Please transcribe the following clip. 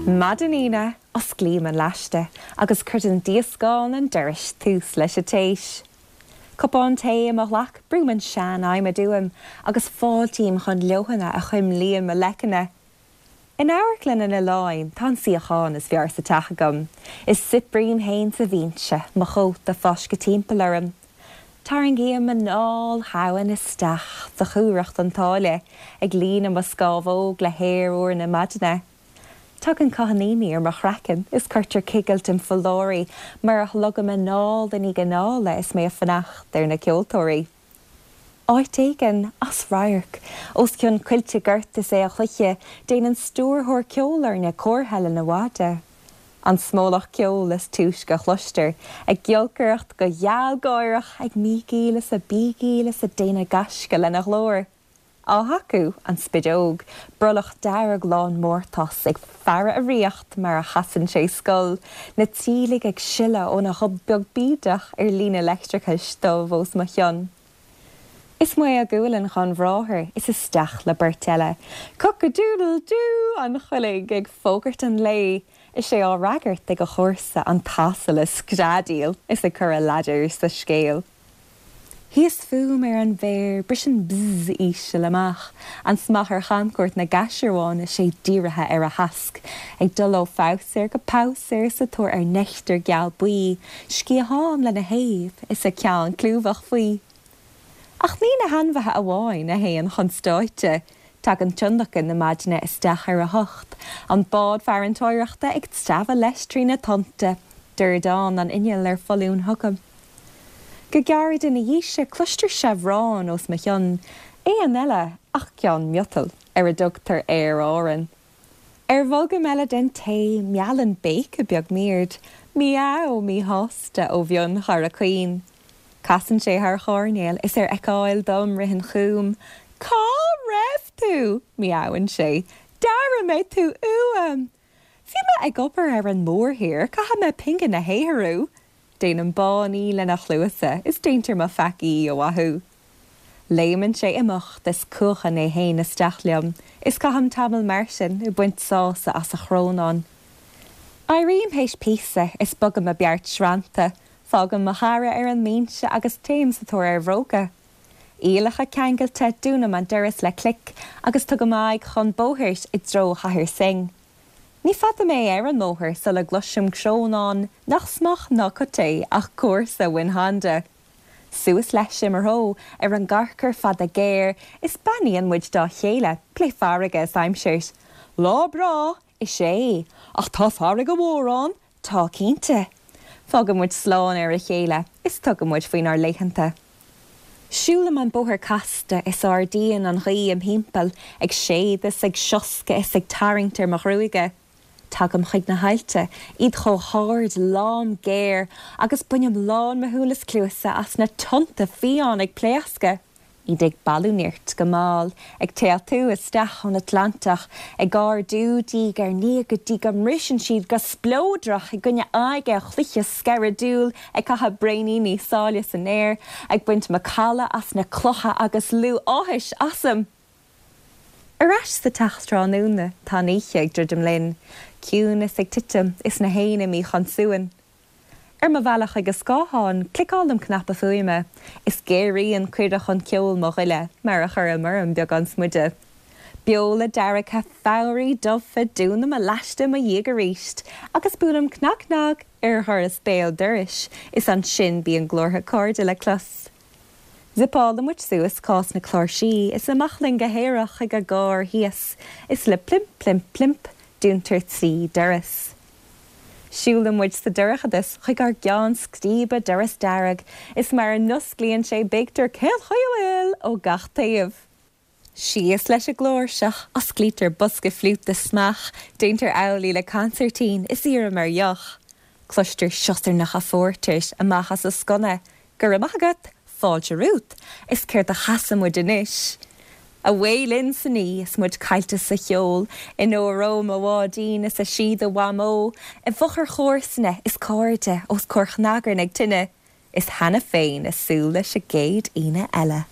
Maidin Aoine, osclaím an laiste agus croitheann díoscán an dorais tús leis an téis. Cupán tae i mo ghlac, brúim an sean-adhmad uaim agus fáiltím chun leoithne a chuimlíonn mo leiceanna. In Amharclann an Oileáin tá an suíochán is fearr sa teach agam, is saibhrím féin sa bhinse, mo chóta fáiscthe timpeall orm. Tarraingím anáil dhomhain isteach de chumhracht an tsáile, ag líonadh mo scámhóg le haer úr na maidine. Tagann cáithníní ar mo chraiceann is cuirtear cigilt im pholláirí mar a shlogaim anáil i ndiaidh anála is mé ag fanacht ar na ceoltóirí. Áit éigin, as radharc, os cionn coillte gort is aolchloiche, déanann stiúrthóir ceolfhoirne comhartha lena mhaide. An smólach ceoil is túisce a chloistear, ag giolcaireacht go gealgháireach, ag mígíl is ag bígíl is ag déanamh gaisce lena ghlór. Á thacú, an spideog, brollach dearg lán mórtais, ag faire a ríocht mar a chasann sé scol, na tíligh ag sileadh óna ghob beag bídeach ar líne leictreachais dubh os mo chionn. Is maol gualainn dhon bhráthair is isteach le beirt eile. Cock-a-doodle-doo an choiligh ag fógairt an lae, is é á fhreagairt ag a chomharsa an t-asal ag screadaíl is ag cur a ladar sa scéal. Thíos fúm ar an bhféar, briseann bzz íseal amach, an smeach ar chamchuairt na gcaisearbhán is é dírithe ar a thasc, ag dul ó phabhsaer go pabhsaer sa tóir ar neictear geal buí, sciathán lena thaobh is a ceann clúmhach faoi. Ach ní na hainmhithe amháin a théann chun stáitse, tagann tionlacan na maidine isteach ar a hocht, an bád farantóireachta ag treabhadh leis trí na tonnta, dordán an innill ar foluain chugam. Go gairid ina dhiaidh sin cloistear seabhrán os mo chionn, éan eile ach ceann miotail, ar a dtugtar Aer Árann. Ar bholgam eile den tae, meallann béiceadh beag m'aird, miaow míshásta ó mhionchara caoin. Casann sé thar choirnéal is ar fheiceáil dom ritheann chugam. Cá raibh tú? miaowann sé. D'airigh mé tú uaim! Bhí mé ag obair ar an mórthír, caithfidh mé pingin a shaothrú! Déanaim báiní lena chluasa is déantar mo pheacaí a mhaitheamh. Léimeann sé imeacht is cuachann é fhéin isteach liom is caithim tamall mar sin ag baint sásamh as a chrónán. Éirím théis píosa is bogaim mo beart srannta, fágaim mo chara ar an mbinse agus téim sa tóir ar bhróga. Iallacha ceangailte, dúnaim an doras le clic agus tugaim aghaidh chun bóthair i dtreo Chathair Synge. Ní fada mé ar an mbóthar sula gcloisim crónán nach smeach ná cut é ach comharsa Win Honda. Suas leis i mo threo ar an gcarcair fada géar is beannaíonn muid dá chéile, plé farraige is aimsir. Lá breá! Is ea, ach tá farraige mhór ann! Tá cinnte. Fágann muid slán ar a chéile is tugann muid faoinár laethanta. Siúlaim an bóthar casta is ardaíonn an ghaoth im thimpeall, ag séideadh is ag sioscadh is ag tarraingt ar mo ghruaige. Tagaim chuig na haillte, iad chomh hard, lom, géar, agus bainim lán mo shúl is cluasa as na tonnta fiáin ag pléascadh. Iad ag bailiú nirt go mall, ag téaltú isteach ón Atlantach, ag ardú diaidh ar ndiaidh go dtí go mbriseann siad go spleodrach i gcoinne aghaidhe chloiche sceireadúil, ag caitheamh braoiníní sáile san aer, ag baint macalla as na clocha agus liú áthais asam! Ar ais sa teach tráthnóna, tá an oíche ag druidim linn, ciúnas ag titim is na héin imithe chun suain. Ar mo bhealach chuig an scáthán, cliceálaim cnaipe fuaime, is géaraíonn cuireadh chun ceoil mo ghoile mar a chuirim orm beagán smideadh. Beola deargtha, fabhraí dubhtha, dúnaim mo laiste i mo dhiaidh arís, agus buailim cnag cnag ar dhoras béal dorais, is ansin bíonn glórtha cairde le clos. Zipeálann muid suas cás na cláirsí is amach linn go haerach chuig an gcarr thíos, is le plimp plimp plimp, dúntar 3 doras. Siúlann muid sa dorchadas chuig ár gceann scríbe doras dearg is mar a n-osclaíonn sé béictear 'Cén chaoi a bhfuil? ó gach taobh. Síos leis an gcláirseach, osclaítear bosca fliúta smeach, déantar amhlaidh le consairtín is iarraim ar dheoch. Cloistear siosarnacha phórtair amach as an sconna, Go raibh maith agat! Fáilte romhat! Is céard a chasfaidh muid anois? Away linn san oíche is muid caillte sa cheol, in Óró mo bháidín is i síoda Mhamó, i bhfochair chomharsana is cairde os comhair chnagairne ag tine, is cheana féin ag súil leis an gcéad Aoine eile.